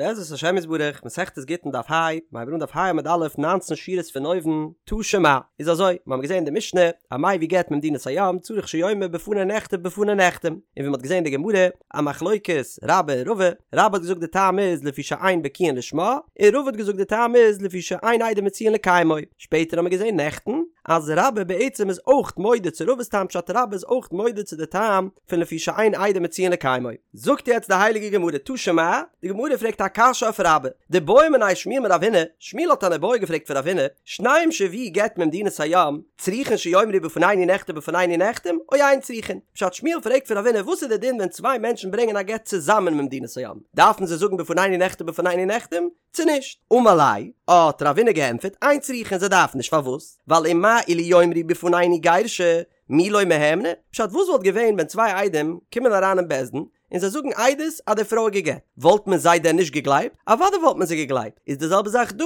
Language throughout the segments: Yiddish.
בעזרת השם יתברך, מסכת גיטין דף ה, מ'הייבט אן דף ה עמוד א', ניינצן שורות פון אויבן, תא שמע, איז אזוי, מיר האבן געזען אין די משנה, המביא גט ממדינת הים צריך שיאמר בפני נכתב בפני נחתם, און ווי מ'האט געזען אין די גמרא, א מחלוקת רבה און רבא, רבה האט געזאגט די טעם איז לפי שאין בקיאין לשמה, און רבא האט געזאגט די טעם איז לפי שאין עדים מצויין לקיימו, שפעטער האבן מיר געזען נעכטן, אז רבה בעצם איז אויך מודה צו רבא'ס טעם פשט רבה איז אויך מודה צו די טעם פון לפי שאין עדים מצויין לקיימו. זאגט יעצט די הייליגע גמרא תא שמע, די גמרא פרעגט א קשיא אויף רבה, דבעא מיניה שמואל מרב הונא, שמואל האט אן איבעיא געפרעגט פון רב הונא, שניים שהביאו גט ממדינת הים, צריכין שיאמרו בפנינו נכתב בפנינו נחתם, או אין צריכין? פשט שמואל פרעגט פון רב הונא וואס איז די דין ווען צוויי מענטשן ברענגען א גט צוזאמען ממדינת הים, דארפן זיי זאגן בפנינו נכתב בפנינו נחתם, צו נישט? אמר ליה, האט רב הונא געענטפערט, אין צריכין זיי דארפן נישט פארוואס? ווייל ומה אילו יאמרו בפנינו גירשה, מי לא מהימני? פשט וואס וואלט געווען ווען צוויי עדים קומען אריין אין בית דין און זיי זאגן עדות אז די פרוי איז גע'גט, וואלט מען זיי דען נישט געגלייבט? אוודאי וואלט מען זיי געגלייבט, איז די זעלבע זאך דא,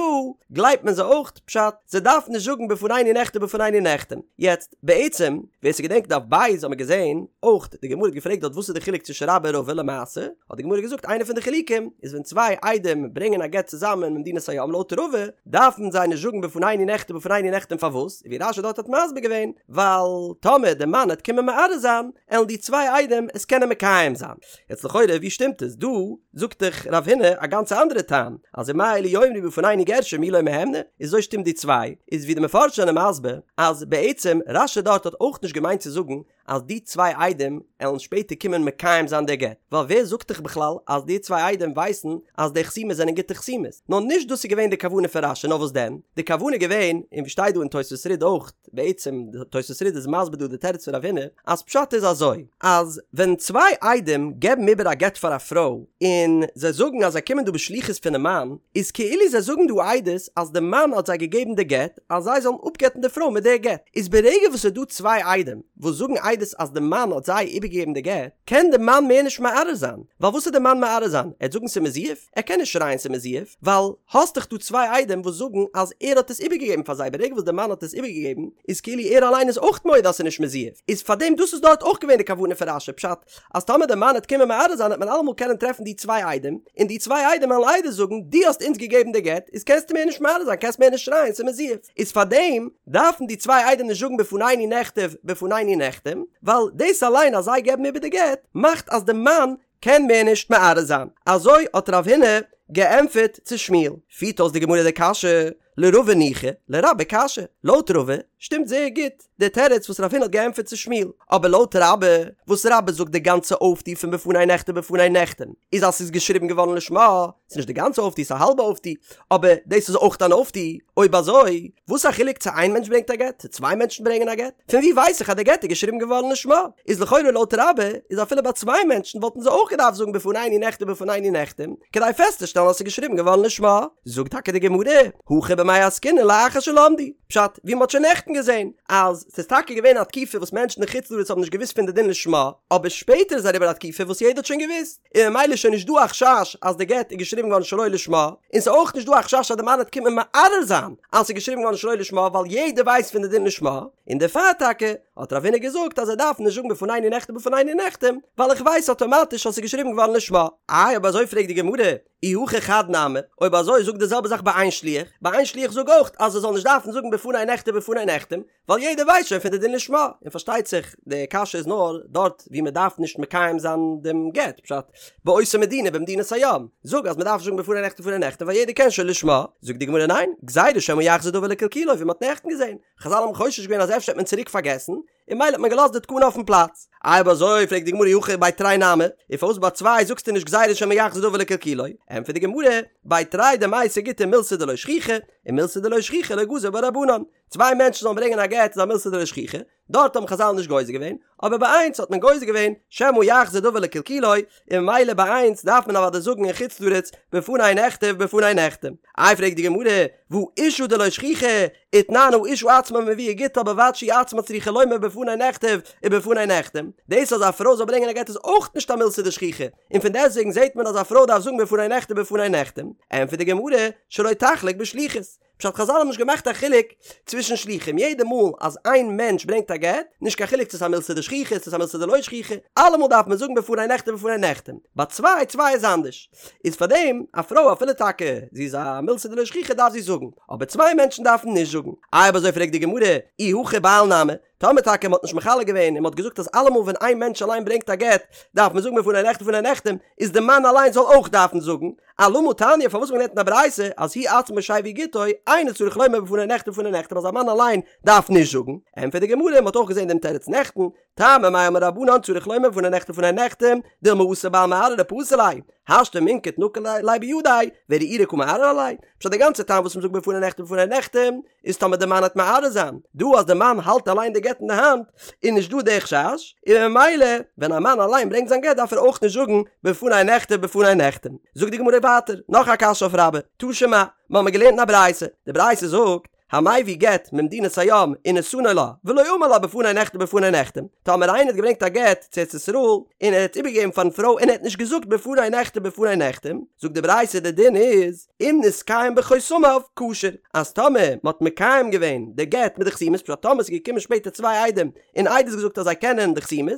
גלייבט מען זיי אויך, פשט, זיי דארפן נישט זאגן בפנינו נכתב בפנינו נחתם. יעצט, בעצם, ווער ס'געדענקט דף ב' האט מען געזען, אויך, די גמרא האט געפרעגט דארט וואס איז די חילוק צווישן רבה און רבא למעשה, האט די גמרא געזאגט איינע פון די חילוקים איז ווען צוויי עדים ברענגען א גט צוזאמען ממדינת הים לויט רבא דארפן זיי נישט זאגן בפנינו נכתב בפנינו נחתם פארוואס ווי רש"י דארט האט מסביר געווען ווייל טאמער די מאן העט קומען מערער זיין עלן די צוויי עדים עס קענען מקיים זיין יעצט לכאורה ווי שטימט עס דא זאגט דאך רב הונא א גאנצע אנדערע טעם אז ומה אילו יאמרו בפנינו גירשה מי לא מהימני איז אזוי שטימט די צוויי איז ווי די מפרשים זענען מסביר אז בעצם רש"י דארט האט אויך נישט געמיינט צו זאגן אז די צוויי עדים עלן שפעטער קומען מקיים זיין די גט, ווייל ווער זאגט דיך בכלל אז די צוויי עדים ווייסן אז די חתימות זענען גוטע חתימות? נאר נישט דאס איז געווען די כוונה פון רש"י, נאר וואס דען? די כוונה איז געווען, און ווי שטייט דא אין תוספות רי"ד אויך, בעצם תוספות רי"ד איז מסביר דא די תירוץ פון רב הונא, אז פשט איז אזוי, אז ווען צוויי עדים געבן איבער א גט פאר א פרוי, און זיי זאגן אז זיי קומען דא בשליחות פונעם מאן, איז כאילו זיי זאגן דא עדות אז די מאן האט זיי געגעבן די גט, אז זיי זאלן אפגט'ן די פרוי מיט די גט, איז ברגע וואס ס'איז דא צוויי עדים וואס זאגן עדות אז די מאן האט זיי איבערגעגעבן די גט, קען די מאן מער נישט מערער זיין, ווייל וואס וועט די מאן מערער זיין? ער וועט זאגן ס'איז מזויף? ער קען נישט שרייען ס'איז מזויף, ווייל האסט דאך דא צוויי עדים וואס זאגן אז ער האט עס איבערגעגעבן פאר זיי, ברגע וואס די מאן האט עס איבערגעגעבן איז כאילו ער אליין איז אויך מודה אז ס'איז נישט מזויף, איז פארדעם דאס איז דארט אויך געווען די כוונה פון רש"י, פשט אז טאמער די מאן וועט קומען מערער זיין וועט מען אלעמאל קענען טרעפן די צוויי עדים, און די צוויי עדים וועלן עדות זאגן, דו האסט אונז געגעבן די גט, איז קענסטו מער נישט מערער זיין, קענסט מער נישט שרייען ס'איז מזויף. איז פארדעם דארפן די צוויי עדים נישט זאגן בפנינו נכתב בפנינו נחתם, ווייל דאס אליין אז זיי געבן איבער די גט, מאכט אז די מאן קען מער נישט מערער זיין. אזוי האט רב הונא געענטפערט צו שמואל. פירט אויס די גמרא די קשיא, לרבא ניחא, לרבה קשיא. לויט רבא שטימט זייער גוט די תירוץ וואס רב הונא האט געענטפערט צו שמואל. אבער לויט רבה, וואס רבה זאגט די גאנצע אויפטו פון בפני נכתב בפני נחתם איז אז ס'איז געשריבן געווארן לשמה, ס'איז נישט די גאנצע אויפטו, ס'איז א האלבע אויפטו, אבער דאס איז אויך אן אויפטו. אויב אזוי, וואס א חילוק צו איין מענטש ברענגט א גט, צו צוויי מענטשן ברענגען א גט? פון וואו ווייס איך אז די גט איז געשריבן געווארן לשמה? איז לכאורה לויט רבה איז אפילו ביי צוויי מענטשן וואלטן זיי אויך געדארפט זאגן בפנינו נכתב בפנינו נחתם, כדי פעסטצושטעלן אז ס'איז געשריבן געווארן לשמה. זאגט טאקע די גמרא, הכא במאי עסקינן לאחר שלמדו, פשט, ווי מ'האט שוין נעכטן געזען, אז ס'איז טאקע געווען א תקופה וואס מענטשן אין חוץ לארץ האבן נישט געוואוסט פון די דין לשמה, אבער שפעטער איז אריבער א תקופה וואס יעדער האט שוין געוואוסט, און ממילא איז שוין נישט דא א חשש אז די גט איז געשריבן געווארן שלא לשמה, און ס'איז אויך נישט דא א חשש אז די מאן וועט קומען מערער זיין אז ס'איז געשריבן געווארן שלא לשמה ווייל יעדער ווייסט פון די דין לשמה, און דערפאר טאקע האט רב הונא געזאגט אז ער דארף נישט זאגן בפנינו נכתב בפנינו נחתם ווייל איך ווייס אטאמאטיש אז ס'איז געשריבן געווארן לשמה. איי אויב אזוי פרעגט די גמרא, אי הכי חד נמי, אויב אזוי זאג די זעלבע זאך ביי איין שליח, ביי איין שליח זאג אויך אז ער זאל נישט דארפן זאגן בפני נכתב בפני נחתם, ווייל יעדער ווייסט שוין פון די דין לשמה, און פארשטייט זיך די קשיא איז נאר דארט ווי מען דארף נישט מקיים זיין דעם גט, פשט, באותה מדינה במדינת הים, זאג אז מען דארף נישט זאגן בפני נכתב בפני נחתם ווייל יעדער קען שוין לשמה, זאגט די גמרא ניין, גזירה שמא יחזור דבר לקלקולו ווי מען האט נעכטן געזען, חזל האבן חושש געווען אז אפשר וועט מען צוריק פארגעסן, און ממילא האט מען געלאזט די תקנה אויפן פלאץ. איי אויב אזוי פרעגט די גמרא אי הכי בי תרי נמי, און פארוואס ביי צוויי זאגסטו נישט גזירה שמא יחזור דבר לקלקולו? ענטפערט די גמרא, בי תרי דמייתי גיטא מילתא דלא שכיחא, און מילתא דלא שכיחא לא גזור בה רבנן. צוויי מענטשן זאלן ברענגען א גט איז א מילתא דלא שכיחא, דארט האבן חזל נישט גוזר געווען, אבער ביי איינס האט מען גוזר געווען שמא יחזור דבר לקלקולו, און ממילא ביי איינס דארף מען אוודאי זאגן אין חוץ לארץ בפני נכתב בפני נחתם. איי פרעגט די גמרא, והא אשה דלא שכיחא, ותנן האשה עצמה מביאה גיטה ובלבד שהיא עצמה צריכה לומר בפני נכתב ובפני נחתם, דאס אז א פרוי זאל ברענגען א גט איז אויך נישט א מילתא דשכיחא, און פון דעסטוועגן זעט מען אז א פרוי דארף זאגן בפני נכתב בפני נחתם, ענטפערט די גמרא, שלא תחלוק בשליחות. פשט חזל האבן נישט געמאכט א חילוק צווישן שלוחים, יעדע מאל אז איין מענטש ברענגט א גט, נישט קיין חילוק צו ס'איז א מילתא דשכיחא צו ס'איז א מילתא דלא שכיחא, אלעמאל דארף מען זאגן בפני נכתב בפני נחתם, ביי צוויי, צוויי איז אנדערש, איז פארדעם א פרוי אפילו טאקע זי איז א מילתא דלא שכיחא דארף זי זאגן, אבער צוויי מענטשן דארפן נישט זאגן. איי אויב אזוי פרעגט די גמרא, אי הכי בעל נמי, טאמער טאקע מ'האט נישט מחלק געווען און מ'האט געזאגט אז אלעמאל ווען איין מענטש אליין ברענגט א גט דארף מען זאגן בפני נכתב בפני נחתם, איז די מאן אליין זאל אויך דארפן זאגן, אלמה תניא פארוואס האט מען געלערנט אין א ברייתא אז הוא עצמו שהביא גיטו אינו צריך לומר בפני נכתב בפני נחתם אז א מאן אליין דארף נישט זאגן, ענטפערט די גמרא מ'האט אויך געזען דעם תירוץ נעכטן, טעמא מאי אמור רבנן צריך לומר בפני נכתב בפני נחתם, דילמא אתי בעל מערער ופסיל ליה, השתא מינקט נקיט ליה בידיה, וערעורי קא מערער עליה, פשט די גאנצע טעם וואס מ'זאגט בפני נכתב בפני נחתם איז טאמער די מאן העט מערער זיין, דא אז די מאן האלט אליין די גט אין די האנט איז נישט דא די חשש, און ממילא ווען א מאן אליין ברענגט זיין גט דארף ער אויך נישט זאגן בפני נכתב בפני נחתם. זאגט די גמרא ווייטער נאך א קשיא אויף רבה, תא שמע, מ'האמיר געלערנט אין א ברייתא, די ברייתא זאגט, המביא גט ממדינת הים ונתנו לה, ולא אמר לה בפני נכתב בפני נחתם, טאמער איינער האט געברענגט א גט צו ארץ ישראל און ער האט איבערגעגעבן פארן פרוי און ער האט נישט געזאגט בפני נכתב בפני נחתם, זאגט די ברייתא די דין איז, אם נתקיים בחותמיו כשר, אז טאמער מען האט מקיים געווען די גט מיט די חתימות, פשט טאמער ס'איז געקומען שפעטער צוויי עדים און עדות געזאגט אז זיי קענען די חתימות,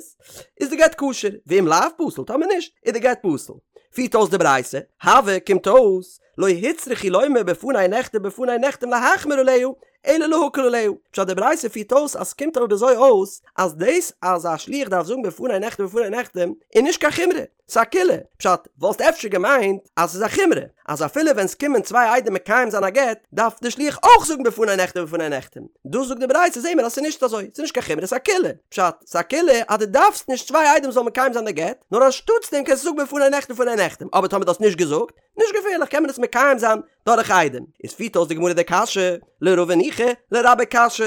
איז די גט כשר, ואם לאו פסול, טאמער נישט, איז די גט פסול. פירט אויס די ברייתא, הוי קומט אויס, לא הוצרכו לומר בפני נכתב בפני נחתם להחמיר עליה, אלא להקל עליה. פשט די ברייתא פירט אויס אז ס'קומט אבער אזוי אויס אז דאס אז א שליח דארף זאגן בפני נכתב בפני נחתם איז נישט קיין חומרא, ס'איז א קולא. פשט, וואלסט אפשר געמיינט אז ס'איז א חומרא, אז אפילו ווען ס'קומען צוויי עדים מקיים זיין א גט, דארף די שליח אויך זאגן בפני נכתב בפני נחתם. דא זאגט די ברייתא זעהן מיר אז ס'איז נישט אזוי, ס'איז נישט קיין חומרא ס'איז א קולא. פשט, ס'איז א קולא אז דו דארפסט נישט צוויי עדים זאלן מקיים זיין די גט, נאר אנשטאטס דעם קענסטו זאגן בפני נכתב בפני נחתם, אבער טאמער דו האסט נישט געזאגט, נישט געפערליך קען מען עס מקיים זיין דורך עדים. איז פירט אויס די גמרא די קשיא, לרבא ניחא, לרבה קשיא.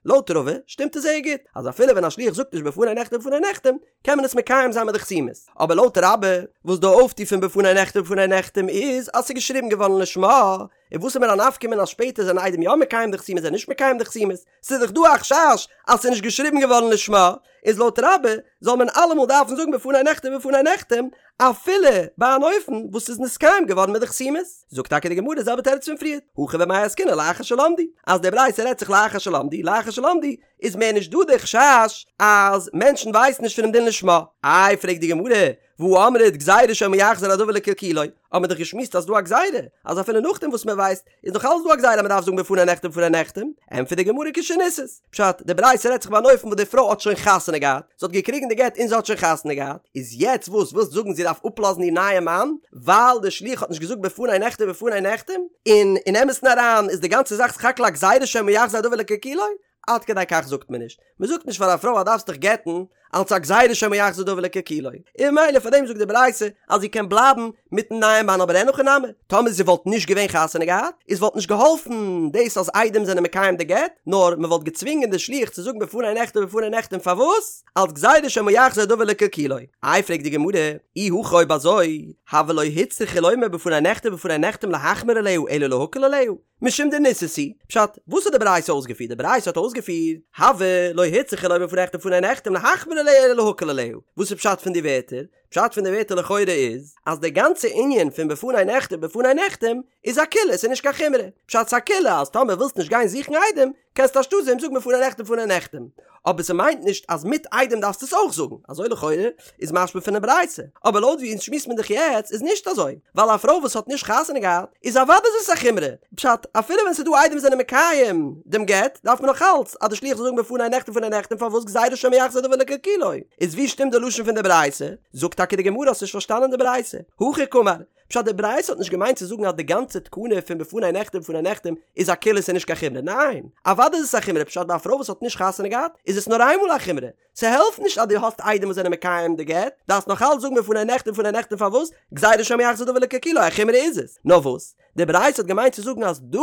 לויט רבא שטימט עס זייער גוט, אז אפילו ווען א שליח זאגט נישט בפני נכתב בפני נחתם, קען מען עס מקיים זיין מיט די חתימות. אבער לויט רבה, וואס די אויפטו פון בפני נכתב בפני נחתם איז אז ס'איז געשריבן געווארן לשמה, און וואס איז מיר א נפקא מינה אז שפעטער זענען עדים יא מקיים די חתימות זענען נישט מקיים די חתימות, ס'איז דאך דא א חשש אז ס'איז נישט געשריבן געווארן לשמה, איז לויט רבה זאל מען אלעמאל דארפן זאגן בפני נכתב בפני נחתם אפילו ביי אן אופן וואס ס'איז נתקיים געווארן מיט די חתימות. זאגט טאקע די גמרא די זעלבע תירוץ פון פריער, הכא במאי עסקינן לאחר שלמדו, אז די ברייתא רעדט זיך לאחר שלמדו, לאחר שלמדו איז מער נישט דא די חשש אז מענטשן ווייסן נישט פונעם דין לשמה. איי פרעגט די גמרא, והא אמרת גזירה שמא יחזור הדבר לקלקולו, האט מען דאך געשמועסט אז ס'דא א גזירה, אז אפילו נאכדעם וואס מען ווייסט, איז נאך אלץ דא א גזירה אז מען דארף זאגן בפני נכתב בפני נחתם, ענטפערט די גמרא כשנישאת, פשט, די ברייתא רעדט זיך ביי אן אופן וואס די פרוי האט שוין חתונה געהאט, זי האט געקריגן די גט און זי האט שוין חתונה געהאט, איז יעצט וואס ווילסט זאגן זי דארף אפלאזן איר נייע מאן ווייל די שליח האט נישט געזאגט בפני נכתב בפני נחתם, און אין אמת'ן אריין איז די גאנצע זאך סך הכל א גזירה שמא יחזור הדבר לקלקולו? עד כדי כך זאגט מען נישט, מען זאגט נישט פאר א פרוי אז דארפסט דיך גט'ן אלץ א גזירה שמא יחזור דבר לקלקולו, און ממילא פאר דעם זאגט די ברייתא אז זי קען בלייבן מיטן נייעם מאן אבער אין הכי נמי, טאמער זי וואלט נישט געווען חתונה געהאט איז וואלט נישט געהאלפן דאס אז עדים זענען מקיים די גט, נאר מען וואלט געצווינגען די שליח צו זאגן בפני נכתב בפני נחתם פארוואס? אלץ גזירה שמא יחזור דבר לקלקולו. איי פרעגט די גמרא, אי הכי אויב אזוי, הוי לא הוצרכו לומר בפני נכתב בפני נחתם להחמיר עליה אלא להקל עליה, משום דנישאת היא, פשט, וואס האט די ברייתא אויסגעפירט? די ברייתא האט אויסגעפירט, הוי לא הוצרכו לומר בפני נכתב בפני נחתם להחמיר עליה אלא להקל עליה. וואס איז פשט פון די ווערטער? פשט פון די ווערטער לכאורה איז, אז די גאנצע ענין פון בפני נכתב בפני נחתם איז א קולא, ס'איז נישט קיין חומרא. פשט ס'איז א קולא אז טאמער ווילסט נישט גיין זוכן עדים, קענסטו אנשטאט דעם זאגן בפני נכתב בפני נחתם. אבער ס'מיינט נישט אז מיט עדים דארפסטו עס אויך זאגן, אזוי לכאורה איז משמע פונעם ברייתא. אבער לויט ווי אונז שמועסט מען דאך יעצט איז נישט אזוי, ווייל א פרוי וואס האט נישט חתונה געהאט איז אוודאי איז עס א חומרא, פשט, אפילו ווען ס'איז דא עדים וואס זענען מקיים דעם גט, דארף מען נאך אלץ אז די שליח זאל זאגן בפני נכתב בפני נחתם פארוואס גזירה שמא יחזור דבר לקלקולו. איז ווי שטימט די לשון פון די ברייתא? זאגט טאקע די גמרא האסט נישט פארשטאנען די ברייתא. הכי קאמר, פשט די ברייתא האט נישט געמיינט צו זאגן אז די גאנצע תקנה פון בפני נכתב בפני נחתם איז א קולא ס'איז נישט קיין חומרא, ניין! אוודאי איז עס א חומרא, פשט ביי א פרוי וואס האט נישט חתונה געהאט איז עס נאר איינמאל א חומרא, ס'העלפט נישט אז דו האסט עדים וואס זענען מקיים די גט, דארפסט נאך אלץ זאגן בפני נכתב בפני נחתם פארוואס? גזירה שמא יחזור דבר לקלקולו, א חומרא איז עס. נאר וואס? די ברייתא האט געמיינט צו זאגן אז דא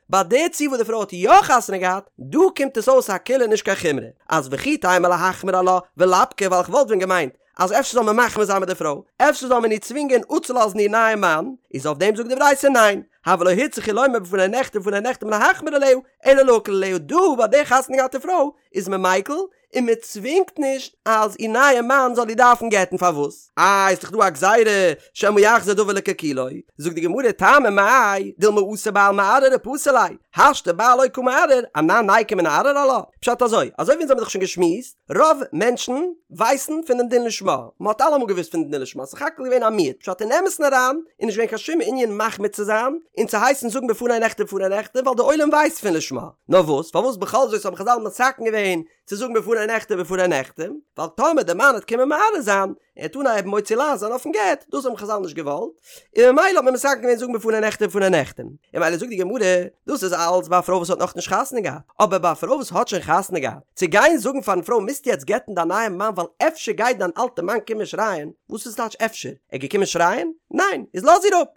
ביי די ציור וואס די פרוי האט יא חתונה געהאט, דא קומט עס אויס א קולא נישט קיין חומרא, אז וכי תימא להחמיר עלה ולפקה ווייל כ'וואלט ווען געמיינט אז אפשר זאל מען מחמיר זיין מיט די פרוי, אפשר זאל מען איר צווינגען אפצולאזן איר נייעם מאן, איז אויף דעם זאגט די ברייתא ניין, הוי לא הוצרכו לומר בפני נכתב בפני נחתם להחמיר עליה, אלא להקל עליה, דא ביי די חתונה געהאטע פרוי. איז מען מיקל, און מען צווינגט נישט אז איר נייע מאן זאל איר דארפן גט'ן פארוואס? איי איז דאך דא א גזירה שמא יחזור דבר לקלקולו, זאגט די גמרא טעמא מאי דילמא אתי בעל מערער ופסיל ליה, השתא בעל לא קא מערער, אנן ניקום ונערער עלה? פשט אזוי, אזוי ווי אונז האבן דאך שוין געשמועסט, רוב מענטשן ווייסן פון דעם דין לשמה, מען האט אלעמאל געוואוסט פון דעם דין לשמה, סך הכל געווען א מיעוט, פשט אין אמת'ן אריין איז נישט געווען קיין שום ענין מחמיר צו זיין און צו הייסן זאגן בפני נכתב בפני נחתם ווייל די עולם ווייסט פון לשמה, נאר וואס פארוואס בכל זאת האבן חזל מתקן געווען צו זאגן בפני נכתב בפני נחתם, ווייל טאמער די מאן וועט קומען מערער זיין, ער וועט אנהייבן מוציא לעז זיין אויפן גט, דאס האבן חזל נישט געוואלט, און ממילא האט מען מתקן געווען זאגן בפני נכתב בפני נחתם, און ממילא זאגט די גמרא, דאס איז אלץ ביי א פרוי וואס האט נאכנישט חתונה געהאט, אבער ביי א פרוי וואס האט שוין חתונה געהאט, צו גיין זאגן פארן פרוי מוזט יעצט גט'ן דיין נייעם מאן ווייל אפשר גייט דיין אלטע מאן קומען שרייען, וואס איז טייטש אפשר? ער איז געקומען שרייען? ניין, איז לאז איר אפ.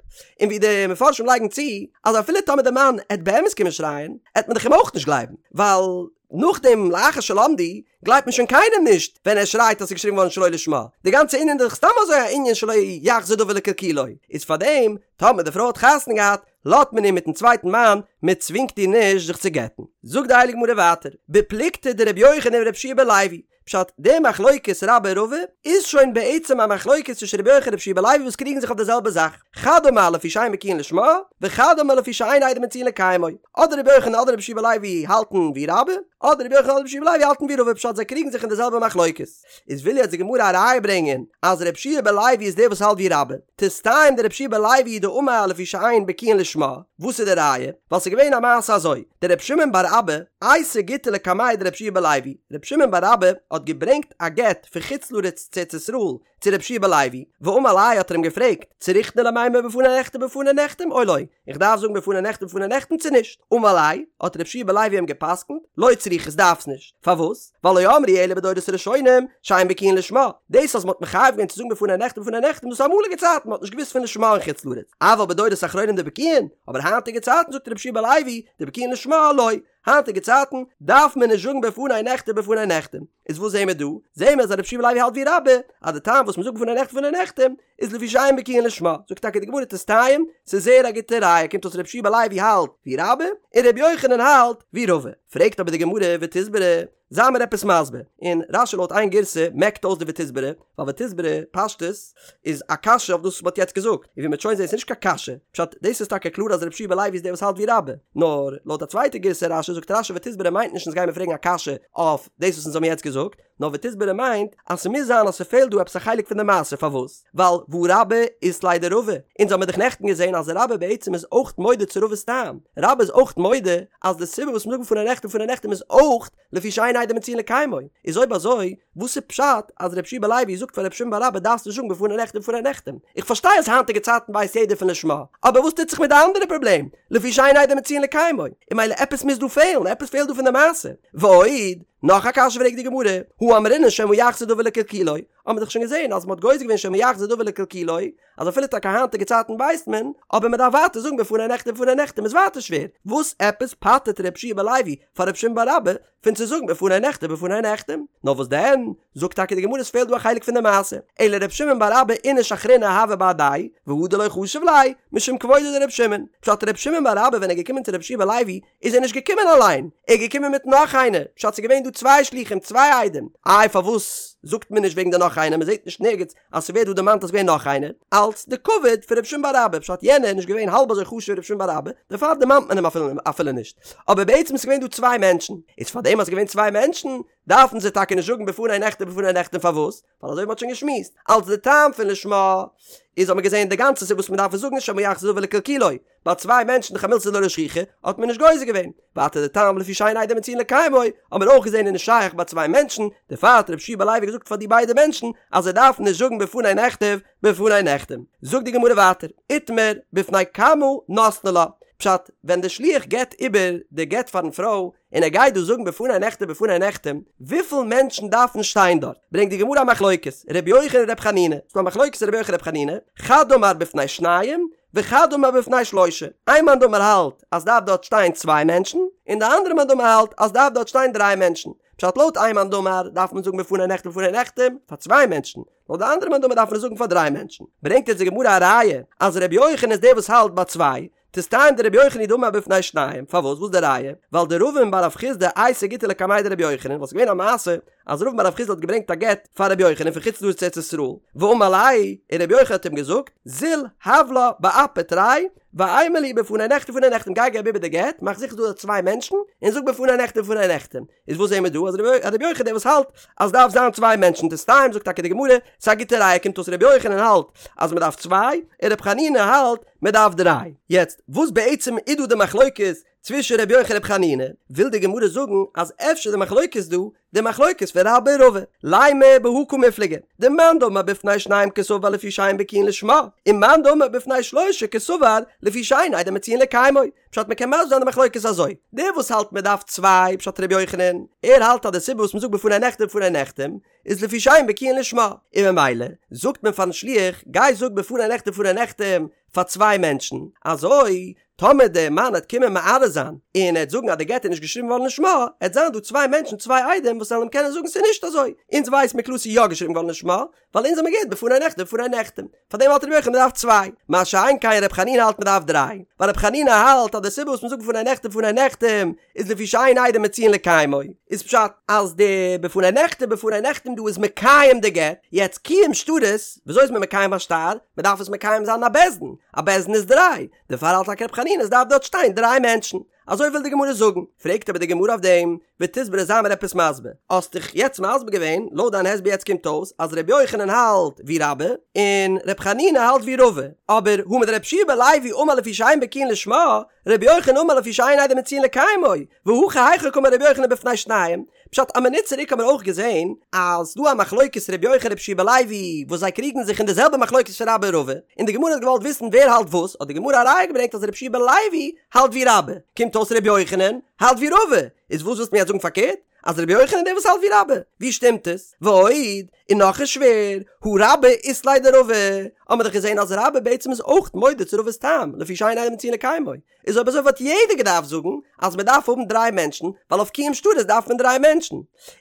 און ווי די מפרשים לייגן צו, אז אפילו טאמער די מאן עט באמת קומען שרייען, עט מען דאך אים אויך נישט גלייבן, ווייל נאכדעם לאחר שלמדו גלייבט מען שוין קיינעם נישט ווען ער שרייט אז ס'איז געשריבן געווארן שלא לשמה, די גאנצע ענין איז דאך סתם אזוי א ענין שלא יחזור דבר לקלקולו, איז פארדעם טאמער די פרוי האט חתונה געהאט לאזט מען איר מיטן צווייטן מאן, מען צווינגט איר נישט זיך צו גט'ן. זאגט די הייליגע גמרא ווייטער, בפלוגתא דרבי יוחנן ורבי יהושע בן לוי, פשט, די מחלוקת רבה רבא איז שוין בעצם א מחלוקת צווישן רבי יוחנן און רבי יהושע בן לוי וואס קריגן זיך אויף די זעלבע זאך, חד אמר לפי שאין בקיאין לשמה, וחד אמר לפי שאין עדים מצויין לקיימו. אדער רבי יוחנן אדער רבי יהושע בן לוי האלטן ווי רבה, אדער רבי יוחנן אדער רבי יהושע בן לוי האלטן ווי רבא, פשט זיי קריגן זיך אין די זעלבע מחלוקת. איז וויל יעצט די גמרא א ראיה ברענגען אז רבי יהושע בן לוי איז דער וואס האלט ווי רבה, תסתיים דרבי יהושע בן לוי דאמר לפי שאין בקיאין לשמה, וואס איז די ראיה? ווייל ס'איז געווען א מעשה אזוי, דרבי שמעון בר אבא אייתי גיטא לקמיה דרבי יהושע בן לוי, רבי שמעון בר אבא האט געברענגט א גט פון חוץ לארץ צו ארץ ישראל צו רבי יהושע בן לוי, ואמר ליה האט ער אים געפרעגט, צריכנא למימר בפני נכתב בפני נחתם או לא, איך דארף זאגן בפני נכתב בפני נחתם צו נישט? אמר ליה, האט רבי יהושע בן לוי אים גע'פסק'נט, לא צריכת דארפסט נישט, פארוואס? ווייל לא אמרו אלא בדורות הראשונים שאין בקיאין לשמה, דאס אז מ'האט מחייב געווען צו זאגן בפני נכתב בפני נחתם דאס איז אמאליגע צייטן מ'האט נישט געוואוסט פון לשמה אין חוץ לארץ, אבל בדורות אחרונים דבקיאין, אבער היינטיגע צייטן זאגט רבי יהושע בן לוי, דבקיאין לשמה לא, היינטיגע צייטן דארף מען נישט זאגן בפני נכתב בפני נחתם, איז וואס זעהן מיר דא? זעהן מיר אז רבי יהושע בן לוי האלט ווי רבה, אז די טעם וואס מ'זאגט בפני נכתב בפני נחתם איז לפי שאין בקיאין לשמה, זאגט טאקע די גמרא תסתיים, ס'איז זייער א גוטע ראיה, קומט אויס רבי יהושע בן לוי האלט ווי רבה, און רבי יוחנן האלט ווי רבא, פרעגט אבער די גמרא ותסברא, זיי מיר עפעס מסביר, און רשי לויט איין גירסא מעקט אויס די ותסברא, ווייל ותסברא פשטות איז א קשיא אויף דאס וואס מ'האט יעצט געזאגט, און ווי מ'וועט שוין זעהן ס'איז נישט קיין קשיא, פשט דאס איז טאקע קלאר אז רבי יהושע בן לוי איז דער וואס האלט ווי רבה, נאר לויט א צווייטע גירסא רשי זאגט רשי ותסברא מיינט נישט אונז גיימיר פרעגן א קשיא אויף דאס וואס אונז האבן יעצט געזאגט, נאר ותסברא מיינט אז ס'מוז זיין אז ס'פעלט דא עפעס א חלק פון די מעשה, פארוואס? ווייל והא רבה אית ליה דרבא, אונז האמיר דאך נעכטן געזען אז רבה בעצם איז אויך מודה צו רבא'ס טעם, רבה איז אויך מודה אז די סיבה וואס מ'זאגט בפני נכתב בפני נחתם איז אויך לפי שאין עדים מצויין לקיימו, איז אויב אזוי וואס איז פשט אז רבי יהושע בן לוי זאגט פאר רבי שמעון בר אבא דארפסט נישט זאגן בפני נכתב בפני נחתם, איך פארשטיי אז היינטיגע צייטן ווייסט יעדער פון לשמה, אבער וואס טוט זיך מיט די אנדערע פראבלעם לפי שאין עדים מצויין לקיימו, און ממילא עפעס מוז דא פעלן, עפעס פעלט דא פון די מעשה, ועוד, נאך א קשיא פרעגט די גמרא, הא אמרינן שמא יחזור דבר לקלקולו, האט מען דאך שוין געזען אז מען האט גוזר געווען שמא יחזור דבר לקלקולו, אז אפילו טאקע היינטיגע צייטן ווייסט מען, אבער מען דארף ווייטער זאגן בפני נכתב בפני נחתם איז ווייטער שווער, וואס עפעס פטר'ט רבי יהושע בן לוי פאר רבי שמעון בר אבא פון צו זאגן בפני נכתב בפני נחתם? נאר וואס דען, זאגט טאקע די גמרא עס פעלט דא א חלק פון די מעשה, אלא רבי שמעון בר אבא איניש אחרינא הוה בהדיה, והדר לא חשיב ליה, משום כבודו דרבי שמעון, פשט רבי שמעון בר אבא ווען ער איז געקומען צו רבי יהושע בן לוי איז ער נישט געקומען אליין, ער איז געקומען מיט נאך איינער, פשט ס'איז געווען דא צוויי שלוחים צוויי עדים, איי פארוואס זאגט מען נישט וועגן די נאך איינער, מ'זעט נישט נערגעץ אז ס'ווערט דא דערמאנט אז ס'געווען נאך איינער, אלץ די כבוד פון רבי שמעון בר אבא, פשט יענער איז נישט געווען האלב אזוי חשוב ווי רבי שמעון בר אבא, דערפאר דערמאנט מען אים אפילו נישט, אבער בעצם איז געווען דא צוויי מענטשן, איז פארדעם אז ס'איז געווען צוויי מענטשן, דארפן זיי טאקע נישט זאגן בפני נכתב בפני נחתם פארוואס? ווייל אזוי ווי מ'האט שוין געשמועסט, אלץ די טעם פון לשמה, איז האט מען געזען די גאנצע סיבה וואס מ'דארף עס זאגן איז שמא יחזור דבר לקלקולו, ביי צוויי מענטשן דאך א מילתא דלא שכיחא, האט מען נישט גוזר געווען. ווייטער די טעם לפי שאין עדים מצויין לקיימו, האט מען אויך געזען איז נישט שייך ביי צוויי מענטשן, דערפאר האט רבי יהושע בן לוי געזאגט פאר די ביידע מענטשן אז זיי דארפן נישט זאגן בפני נכתב בפני נחתם. זאגט די גמרא ווייטער, איתמר בפני כמה נתנו לה, פשט, ווען די שליח געבט איבער די גט פארן פרוי, און ער גייט דא זאגן בפני נכתב בפני נחתם, וויפיל מענטשן דארפן שטיין דארט? ברענגט די גמרא א מחלוקת, ר' יוחנן ר' חנינא, ס'דא א מחלוקת ר' יוחנן ר' חנינא, חד אמר בפני שניים, וחד אמר בפני שלושה, איין מאן דאמר האלט אז דארף דארט שטיין צוויי מענטשן, און די אנדערע מאן דאמר האלט אז דארף דארט שטיין דריי מענטשן, פשט לויט איין מאן דאמר דארף מען זאגן בפני נכתב בפני נחתם פאר צוויי מענטשן, לויט די אנדערע מאן דאמר דארף מען עס זאגן פאר דריי מענטשן, ברענגט יעצט די גמרא א ראיה אז ר' יוחנן איז דער וואס האלט ביי צוויי, תסתיים דרבי יוחנן הוא דאמר בפני שניים, פארוואס? וואס די ראיה? ווייל דרבין בר רב חסדא אייתי גיטא לקמיה דרבי יוחנן, וואס איז געווען א מעשה אז רבין בר רב חסדא האט געברענגט א גט פאר רבי יוחנן פון חוץ לארץ ארץ ישראל, ואמר ליה, און רבי יוחנן האט אים געזאגט, זיל הב לה באפי תרי, ואימא להו בפני נכתב ובפני נחתם, גיי געב איבער די גט, מאך זיכער ס'איז דא צוויי מענטשן, און זאג בפני נכתב ובפני נחתם. איז וואס זעהן מיר דא? אז רבי יוחנן דער וואס האלט אז דארף זיין צוויי מענטשן, תסתיים זאגט טאקע די גמרא, ס'איז א גוטע ראיה, קומט אויס רבי יוחנן האלט אז מ'דארף צוויי, און רבי חנינא האלט מ'דארף דריי. יעצט, וואס בעצם איז דא די מחלוקת צווישן רבי יוחנן און רבי חנינא, וויל די גמרא זאגן אז אפשר די מחלוקת דא, די מחלוקת פון רבה און רבא, לימא בהא קמיפלגי, דמאן דאמר בפני שניים קסבר לפי שאין בקיאין לשמה, און מאן דאמר בפני שלשה קסבר לפי שאין עדים מצויין לקיימו, פשט מ'קען מסביר זיין די מחלוקת אזוי, דער וואס האלט מ'דארף צוויי, פשט רבי יוחנן, ער האלט אז די סיבה וואס מ'זאגט בפני נכתב ובפני נחתם, איז לפי שאין בקיאין לשמה, און ממילא זאגט מען פארן שליח גיי זאג בפני נכתב ובפני נחתם פאר צוויי מענטשן, אזוי טאמער דער מאן העט קומען מערער זיין און ער העט זאגן אז די גט איז נישט געשריבן געווארן לשמה, העט זיין דא צוויי מענטשן צוויי עדים וואס וועלן אים קענען זאגן ס'איז נישט אזוי, אונז ווייס מיר קלאר ס'איז יא געשריבן געווארן לשמה, ווייל אונז האמיר געהערט בפני נכתב ובפני נחתם, פאר דעם האלט רבי יוחנן מ'דארף צוויי, מה שאין כן רבי חנינא האלט מ'דארף דריי, ווייל רבי חנינא האלט אז די סיבה וואס מ'זאגט בפני נכתב ובפני נחתם איז לפי שאין עדים מצויין לקיימו, איז פשט אז די בפני נכתב ובפני נחתם דא איז מקיים די גט, יעצט קיום שטרות, וויאזוי איז מען מקיים א שטר? מ'דארף עס מקיים זיין אין א בית דין, א בית דין איז דריי, דערפאר האלט טאקע רבי חנינא עס דארף דארט שטיין דריי מענטשן. אזוי וויל די גמרא זאגן. פרעגט אבער די גמרא אויף דעם, ותסברא זיי מיר עפעס מסביר. האסט דאך יעצט מסביר געווען, לויט דיין הסבר יעצט קומט אויס אז ר' יוחנן האלט ווי רבה, און ר' חנינא האלט ווי רבא. אבער הא מדר' יהושע בן לוי אמר לפי שאין בקיאין לשמה, ר' יוחנן אמר לפי שאין עדים מצויין לקיימו, והכא היכי קאמר ר' יוחנן בפני שניים, פשט א מינוט צוריק האבן מיר אויך געזען אז ס'דא א מחלוקת ר' יוחנן ר' יהושע בן לוי וואס זיי קריגן זיך אין די זעלבע מחלוקת פון רבה און רבא, און די גמרא האט געוואלט וויסן ווער האלט וואס, האט די גמרא א ראיה געברענגט אז ר' יהושע בן לוי האלט ווי רבה, קומט אויס ר' יוחנן האלט ווי רבא, איז וואס ווילסטו מיר יעצט זאגן פארקערט? אז ר' יוחנן איז דער וואס האלט ווי רבה? ווי שטימט עס? ועוד, און נאך איז שווער, הא רבה אית ליה דרבא, האמיר דאך געזען אז רבה בעצם איז אויך מודה צו רבא'ס טעם, לפי שאין עדים מצויין לקיימו, איז אויב אזוי וואלט יעדער געדארפט זאגן אז מען דארף האבן דריי מענטשן, ווייל אויף קיום שטרות דארף מען דריי מענטשן.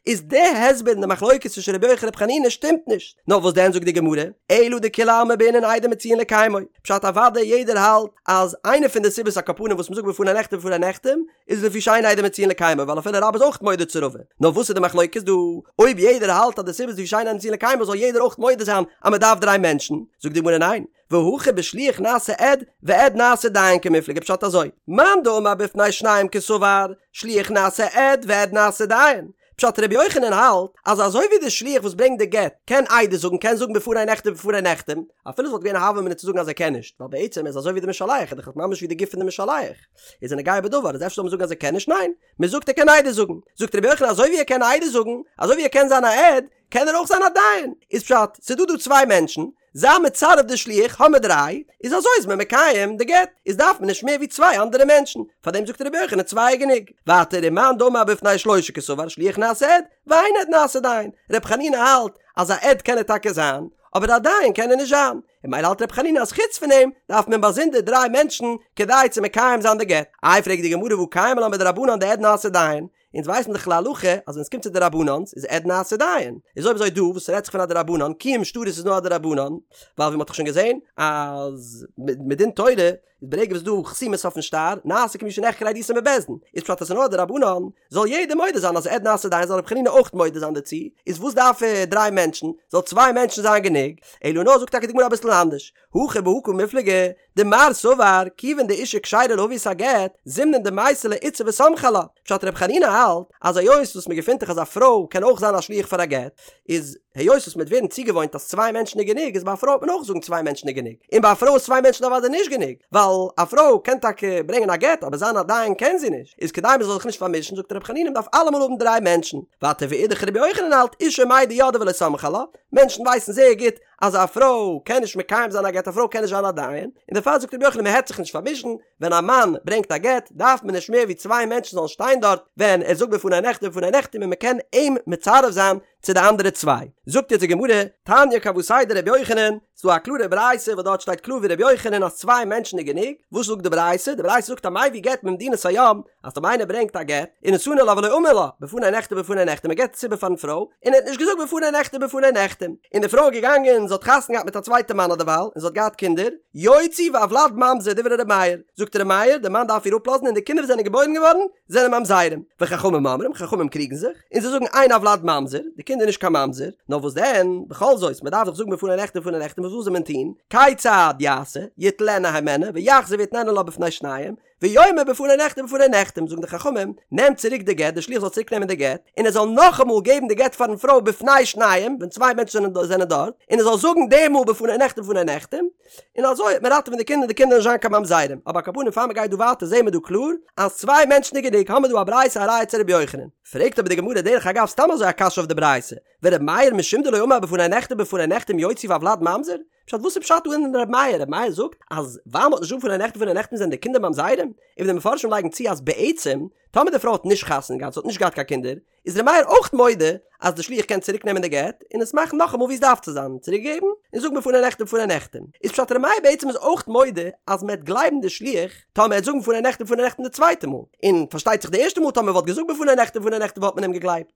איז די הסבר אין די מחלוקת צווישן רבי יוחנן רבי חנינא שטימט נישט. נאר וואס דען זאגט די גמרא, אלא דכולי עלמא בעינן עדים מצויין לקיימו. פשט אוודאי יעדער האלט אז איינע פון די סיבות על כל פנים וואס מען זאגט בפני נכתב ובפני נחתם איז לפי שאין עדים מצויין לקיימו ווייל אפילו רבה איז אויך מודה צו רבא. נאר וואס איז די מחלוקת דא? אויב יעדער האלט אז די סיבה איז לפי שאין עדים מצויין לקיימו זאל יעדער אויך מודה זיין אז מען דארף דריי מענטשן. זאגט די גמרא ניין. והכא בשליח נעשה עד ועד נעשה דיין קמיפלגי פשט אזוי, מאן דאמר בפני שניים קסבר, שליח נעשה עד ועד נעשה דיין, פשט רבי יוחנן האלט אז אזוי ווי די שליח וואס ברענגט די גט קען עדות זאגן קען זאגן בפני נכתב ובפני נחתם, אפילו עס וואלט געווען א הוה אמינא צו זאגן אז ער קען נישט, ווייל בעצם איז אזוי ווי די משלח איז דאך ממש ווי די גוף פון די משלח איז א נוגע בדבר איז אפשר זאל מען זאגן אז ער קען נישט ניין מען זאגט ער קען עדות זאגן זאגט רבי יוחנן אזוי ווי ער קען עדות זאגן אזוי ווי ער קען זיין א עד קען ער אויך זיין א דיין איז פשט ס'דא דא צוויי מענטשן זיי מצרף די שליח האמיר דריי, איז אזוי איז מען מקיים די גט, איז דארף מען נישט מער ווי צוויי אנדערע מענטשן, פארדעם זאגט רבי יוחנן צוויי איז גענוג. ווייטער ומאן דאמר בפני שלושה קסבר שליח נעשה עד, ואין עד נעשה דיין, רבי חנינא האלט אז א עד קען ער טאקע זיין, אבער א דיין קען ער נישט זיין, און ממילא האלט רבי חנינא אז חוץ פון אים דארף מען באזונדער דריי מענטשן כדי צו מקיים זיין די גט. איי פרעגט די גמרא והא קיימא לן בדרבנן דעד נעשה דיין, אונז ווייסן דאך להלכה אז ווען עס קומט צו דרבנן'ס איז עד נעשה דיין, איז אויב אזוי דא וואס רעדט זיך פון א דרבנן, קיום שטרות איז נאר א דרבנן, ווייל ווי מ'האט דאך שוין געזען אז מדין תורה איז ברגע וואס ס'דא חתימות אויפן שטר נעשה כמי שנחקרה עדותו בבית דין, איז פשט אז ס'איז נאר א דרבנן, זאל יעדער מודה זיין אז עד נעשה דיין זאל רבי חנינא אויך מודה זיין דערצו, איז וואס דארף ער דריי מענטשן, זאל צוויי מענטשן זיין גענוג, אלא נאר זאגט טאקע די גמרא אביסל אנדערש, הכא בהא קמיפלגי, דמר סבר, כיוון דאשה כשרה להביא את הגט, זימנין דמייתי לה איתתא וסמכי עלה. פשט רבי חנינא האלט, אז היות וואס מען געפינט דאך אז א פרוי קען אויך זיין א שליח פאר א גט, איז היות וואס מען וועט ווערן צוגעוואוינט אז צוויי מענטשן איז גענוג, איז ביי א פרוי וועט מען אויך זאגן צוויי מענטשן איז גענוג. און ביי א פרוי איז צוויי מענטשן אוודאי נישט גענוג, ווייל א פרוי קען טאקע ברענגען א גט, אבער זיין א דיין קען זי נישט. איז כדי מען זאל זיך נישט פארמישן זאגט רבי חנינא מען דארף אלעמאל האבן דריי מענטשן. ווייטער ואידך רבי יוחנן האלט אשה מידע ידעי ולא סמכי עלה, מענטשן ווייסן זייער גוט אז א פרוי קען נישט מקיים זיין א גט, א פרוי קען נישט זיין א דיין, און דערפאר זאגט רבי יוחנן מען העט זיך נישט פארמישן, ווען א מאן ברענגט א גט דארף מען נישט מער ווי צוויי מענטשן זאלן שטיין דארט ווען ער זאגט בפני נכתב ובפני נחתם און מען קען אים מצרף זיין. צו די אנדערע צוויי. זאגט יעצט די גמרא, תניא כוותיה דרבי יוחנן, ס'דא א קלארע ברייתא וואס דארט שטייט קלאר ווי רבי יוחנן אז צוויי מענטשן איז גענוג, וואס זאגט די ברייתא? די ברייתא זאגט המביא גט ממדינת הים, אז טאמער איינער ברענגט א גט, ונתנו לה ולא אמר לה, בפני נכתב בפני נחתם, ער געבט עס איבער פארן פרוי, און ער האט נישט געזאגט בפני נכתב בפני נחתם, און די פרוי איז געגאנגען זי האט חתונה געהאט מיט א צווייטע מאן אדערווייל, און זי האט געהאט קינדער, יוציא והולד ממזר דברי ר' מאיר, זאגט ר' מאיר, די מאן דארף איר אפלאזן און די קינדער וואס זענען געבוירן געווארן זענען ממזרים, וחכמים אומרים, חכמים קריגן זיך, און זיי זאגן אין הולד ממזר, די קינד איז נישט קיין ממזר, נאר וואס דען, בכל זאת, מען דארף דאך זאגן בפני נכתב בפני נחתם, וואס זאל מען טון, כיצד יעשה, יטלנה הימנה, ויחזור ויתננה לה בפני שניים, ויאמר בפני נכתב בפני נחתם, זאגן די חכמים, נעם צוריק די גט, די שליח זאל צוריק נעמען די גט, און ער זאל נאכאמאל געבן די גט פארן פרוי בפני שניים, ווען צוויי מענטשן זענען דארט, און ער זאל זאגן די מאל בפני נכתב בפני נחתם, און אזוי וועט מען ראטעווען די קינדער און די קינדער זאלן נישט זיין קיין ממזרים, אבער על כל פנים פאר מען גייט דא ווייטער זעהן מיר דא קלאר אז צוויי מענטשן איז גענוג, האמיר דא א ברייתא א ראיה צו רבי יוחנן. פרעגט אבער די גמרא דרך אגב סתם אזוי א קשיא אויף די ברייתא, ור' מאיר משום דלא אמר בפני נכתב בפני נחתם יוציא והולד ממזר? פשט וואס איז פשט דא אין ר' מאיר? ר' מאיר זאגט אז ווייל מ'האט נישט געזאגט בפני נכתב בפני נחתם זענען די קינדער ממזרים? און די מפרשים לייגן צו אז בעצם טאמער די פרוי האט נישט חתונה געהאט זי האט נישט געהאט קיין קינדער איז ר' מאיר אויך מודה אז די שליח קען צוריק נעמען די גט און עס מאכן נאכאמאל ווי עס דארף צו זיין צוריק געבן און זאגן בפני נכתב בפני נחתם איז פשט ר' מאיר בעצם איז אויך מודה אז מען וועט גלייבן די שליח טאמער ער וועט זאגן בפני נכתב בפני נחתם די צווייטע מאל און פארשטייט זיך די ערשטע מאל טאמער וואלט געזאגט בפני נכתב בפני נחתם וואלט מען אים געגלייבט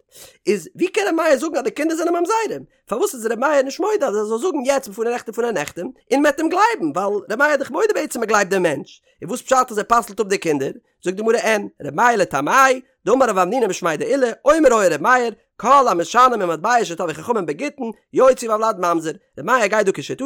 איז ווי קען ר' מאיר זאגן אז די קינדער זענען ממזרים פארוואס איז ר' מאיר נישט מודה אז ער זאל זאגן יעצט בפני נכתב בפני נחתם און מען וועט אים גלייבן ווייל ר' מאיר איז דאך מודה בעצם מען גלייבט דעם מענטש און וואס פשט אז ער פסל'ט אפ די קינדער זאגט די גמרא אין, ר' מאיר לטעמי', דאמר רב המנונא משמיה דעולא, אומר היה ר' מאיר, כל המשנה ממטבע שטבעו חכמים בגיטין, יוציא והולד ממזר, ר' מאיר גייט דא כשיטתו,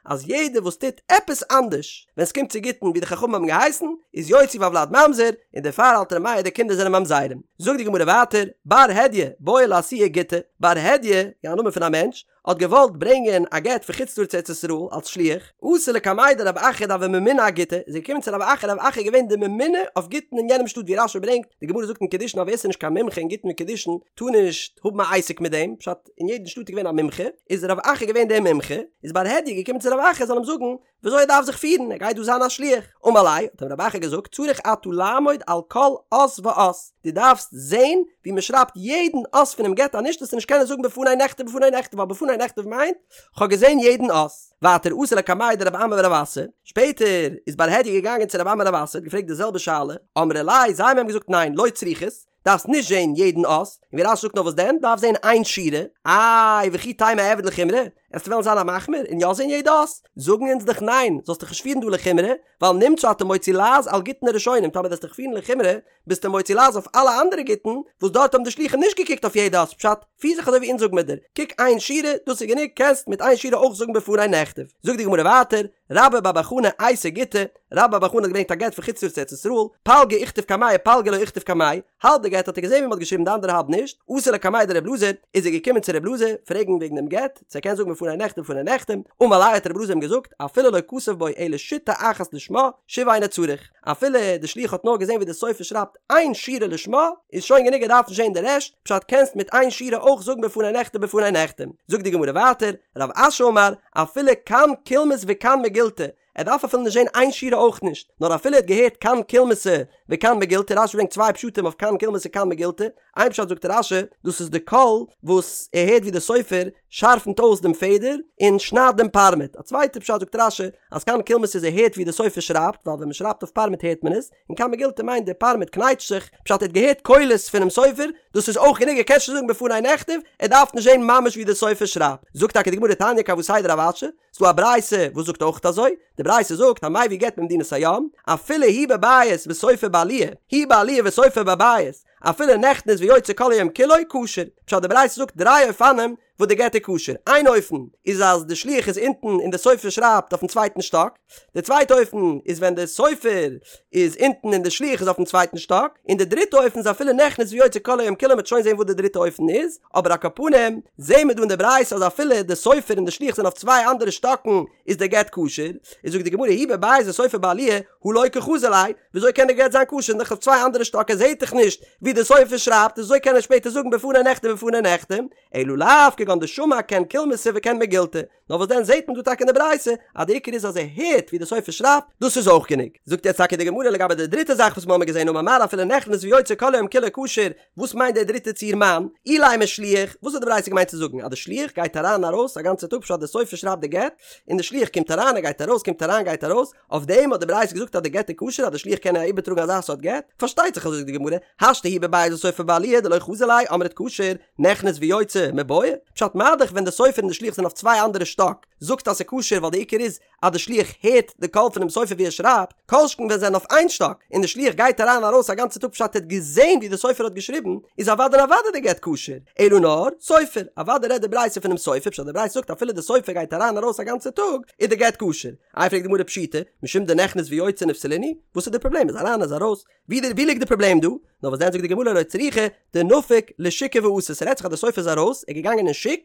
אז יעדער וואס טוט עפעס אנדערש ווען ס'קומט צו גיטין ווי די חכמים האבן געהייסן, איז יוציא והולד ממזר, און דערפאר האלט ר' מאיר די קינדער זענען ממזרים. זאגט די גמרא ווייטער, בר הדיא, בעי לאתויי גיטא, בר הדיא, א נאמען פון א מענטש, האט געוואלט ברענגען א גט פון חוץ לארץ צו ארץ ישראל אלס שליח, אתא לקמיה דרב אחא דהוה ממונה אגיטא, איז ער געקומען צו רב אחא, רב אחא איז געווען די ממונה אויף גיטין אין יענעם שטאט ווי רש"י ברענגט, די גמרא זאגט אין קידושין אז ווער ס'איז נישט קיין מומחה אין גיטין וקידושין טאר נישט האבן א עסק מיט דעם, פשט אין יעדן שטאט איז געווען א מומחה, איז רב אחא געווען דער מומחה, איז בר הדיא געקומען צו רב אחא זאל אים זאגן וויאזוי ער דארף זיך פירן, ער גייט דא זיין א שליח. אמר ליה, האט אים רב אחא געזאגט, צריך אתה לעמוד על כל אות ואות, דו דארפסט זען ווי מען שרייבט יעדן אות פונעם גט, אנישט וועסטו נישט קענען זאגן בפני נכתב בפני נחתם, ווייל בפני נכתב מיינט, כ'האב געזען יעדן אות. ווייטער אתא לקמיה דרב אמי ורב אסי, שפעטער איז בר הדיא געגאנגען צו רב אמי און רב אסי, האט געפרעגט די זעלבע שאלה, אמרי ליה, זיי האבן אים געזאגט ניין, לא צריכת, דארפסט נישט זעהן יעדן אות, און ווי רש"י זאגט נאר וואס דען, דארפסט זעהן איין שורה, איי וכי תימא אעביד לחומרא, עסטו וועלן זיין א מחמיר און יא זעהן יעדע אות, זאגן אונז דיך ניין, זאלסט דיך נישט פירן דא לחומרא, ווייל נמצא אתה מוציא לעז על גיטין הראשונים, טאמער וועסט דיך פירן לחומרא, ביסטו מוציא לעז אויף אלע אנדערע גיטין, וואס דארט האבן די שלוחים נישט געקוקט אויף יעדע אות, פשט, פיר זיך אזוי ווי אונז זאגן מיר דיר, קוק איין שורה, דאס איז גענוג, קענסט מיט איין שורה אויך זאגן בפני נכתב. זאגט די גמרא ווייטער, רבה בר בר חנה אייתי גיטא, רבה בר בר חנה האט געברענגט א גט פון חוץ לארץ צו ארץ ישראל, פלגא איכתב קמיה פלגא לא איכתב קמיה, האלב די גט האט ער געזען ווי מען האט געשריבן די אנדערע האלב נישט, אתא לקמיה דר' אלעזר, איז ער געקומען צו ר' אלעזר פרעגן וועגן דעם גט, צו ער קען זאגן בפני נכתב בפני נחתם, אמר ליה האט ר' אלעזר אים געזאגט, אפילו לא כתב בו אלא שיטה אחת לשמה, שוב אינו צריך, אפילו די שליח האט נאר געזען ווי די סופר שרייבט איין שורה לשמה, איז שוין גענוג ער דארף נישט זען די רעשט, פשט קענסט מיט איין שורה אויך זאגן בפני נכתב בפני נחתם. זאגט די גמרא ווייטער, רב אשי אמר, אפילו קן קולמוס וקן מגילתא, ער דארף אפילו נישט זען איין שורה אויך נישט, נאר אפילו ער האט געהערט קן קולמוסא וקן מגילתא, רשי ברענגט צוויי פשטים אויף קן קולמוס און קן מגילתא, איין פשט זאגט רשי, דאס איז די קול וואס ער הערט ווי די סופר שארפנט אויס דעם פעדער און שניידט דעם פארמעט, א צווייטע פשט זאגט רשי, אז קן קולמוס איז ער הערט ווי די סופר שרייבט, ווייל ווען מען שרייבט אויף פארמעט הערט מען עס, און קן מגילתא מיינט די פארמעט קנייטשט זיך, פשט ער האט געהערט קולות פונעם סופר, דאס איז אויך גענוג ער קען שוין זאגן בפני נכתב, ער דארף נישט זען ממש ווי די סופר שרייבט. זאגט טאקע די גמרא תניא כוותיה דרב אשי, ס'דא א ברייתא וואס זאגט אויך אזוי, די ברייתא זאגט המביא גט ממדינת הים, אפילו הוא בבית וסופר בעליה, היא בעליה וסופר בבית, אפילו נכנס ויוצא כל היום כולו, כשר. פשט די ברייתא זאגט דריי אופנים וואס די גט איז כשר, איין אופן איז אז די שליח איז אונטן און די סופר שרייבט אויפן צווייטן שטאק, די צווייטע אופן איז ווען די סופר איז אונטן און די שליח איז אויפן צווייטן שטאק, און די דריטע אופן איז אפילו נכנס ויוצא כל היום כולו מ'וועט שוין זען וואס די דריטע אופן איז, אבער על כל פנים זעהן מיר דא אין די ברייתא אז אפילו די סופר און די שליח זענען אויף צוויי אנדערע שטאקן איז די גט כשר, איז זאגט די גמרא הוא בבית וסופר בעליה הא לא קא חזי ליה, וויאזוי קען די גט זיין כשר דאך אויף צוויי אנדערע שטאק ער זעהט דאך נישט ווי די סופר שרייבט וויאזוי קען ער שפעטער זאגן בפני נכתב בפני נחתם, אלא לאו כגון. כגון דשמע כעין קולמוסא וכעין מגילתא, נאר וואס דען זעהט מען דא טאקע אין די ברייתא אז די עיקר איז אז ער הערט ווי די סופר שרייבט, דאס איז אויך גענוג. זאגט יעצט טאקע די גמרא לגבי די דריטע זאך וואס מ'האמיר געזעהן אמר מר אפילו נכנס ויוצא כל היום כולו כשר, וואס מיינט די דריטע ציור מאן אילימא שליח, וואס האט די ברייתא געמיינט צו זאגן אז די שליח גייט אריין און ארויס א גאנצע טאג פשט די סופר שרייבט די גט און די שליח קומט אריין ער גייט ארויס קומט אריין גייט ארויס, אויף דעם האט די ברייתא געזאגט אז די גט איז כשר אז די שליח קען איבערטראגן אזא סארט גט? פארשטייט זיך אזוי זאגט די גמרא, השתא הוא בבית וסופר בעליה דלא חזי ליה אמרת כשר, נכנס ויוצא, מיבעיא? פשט מה-דאך ווען די סופר און די שליח זענען אויף צוויי אנדערע שטאק, זאגט אז ס'איז כשר ווייל די עיקר איז אז די שליח הערט די קול פונעם סופר ווי ער שרייבט, כל שכן ווען זיי זענען אויף איין שטאק און די שליח גייט אריין און ארויס א גאנצע טאג פשט ער האט געזען ווי די סופר האט געשריבן, איז אוודאי און אוודאי די גט כשר, אלא נאר, סופר, אוודאי רעדט די ברייתא פונעם סופר פשט די ברייתא זאגט אפילו די סופר גייט אריין און ארויס א גאנצע טאג איז די גט כשר. איי פרעגט די גמרא פשיטא, משום דנכנס ויוצא נפסלינהו, וואס איז די פראבלעם איז אריין איז ארויס, ווי די ווי ליגט די פראבלעם דא? נאר וואס דען זאגט די גמרא לא צריכא דנפיק לשוקא ואתי, ס'רעדט זיך אז די סופר איז ארויס, ער איז געגאנגען אין שוק,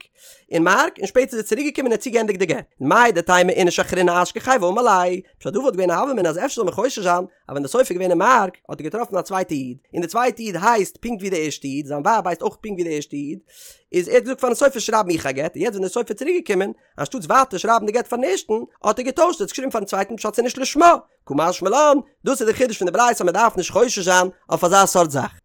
אין מארק, און שפעטער איז ער צוריק געקומען און האט צוגעענדיגט די גט. מהו דתימא איניש אחרינא אשכחיה ואמר ליה, פשט דא וואלט געווען א הוה אמינא אז אפשר זאל מען חושש זיין אז ווען די סופר איז געווען אין מארק האט ער געטראפן א צווייטע איד, און די צווייטע איד הייסט פונקט ווי די ערשטע איד, זיין ווייב הייסט אויך פונקט ווי די ערשטע איד, איז ער האט געזאגט פארן סופר שרייב מיך א גט, און יעצט ווען די סופר איז צוריק געקומען, אנשטאטס ווייטער שרייבן די גט פארן ערשטן, האט ער געטוישט און עס געשריבן פארן צווייטן פשט ס'איז נישט לשמה. קא משמע לן, דאס איז די חידוש פון די ברייתא אז מען דארף נישט חושש זיין אויף אזא סארט זאך.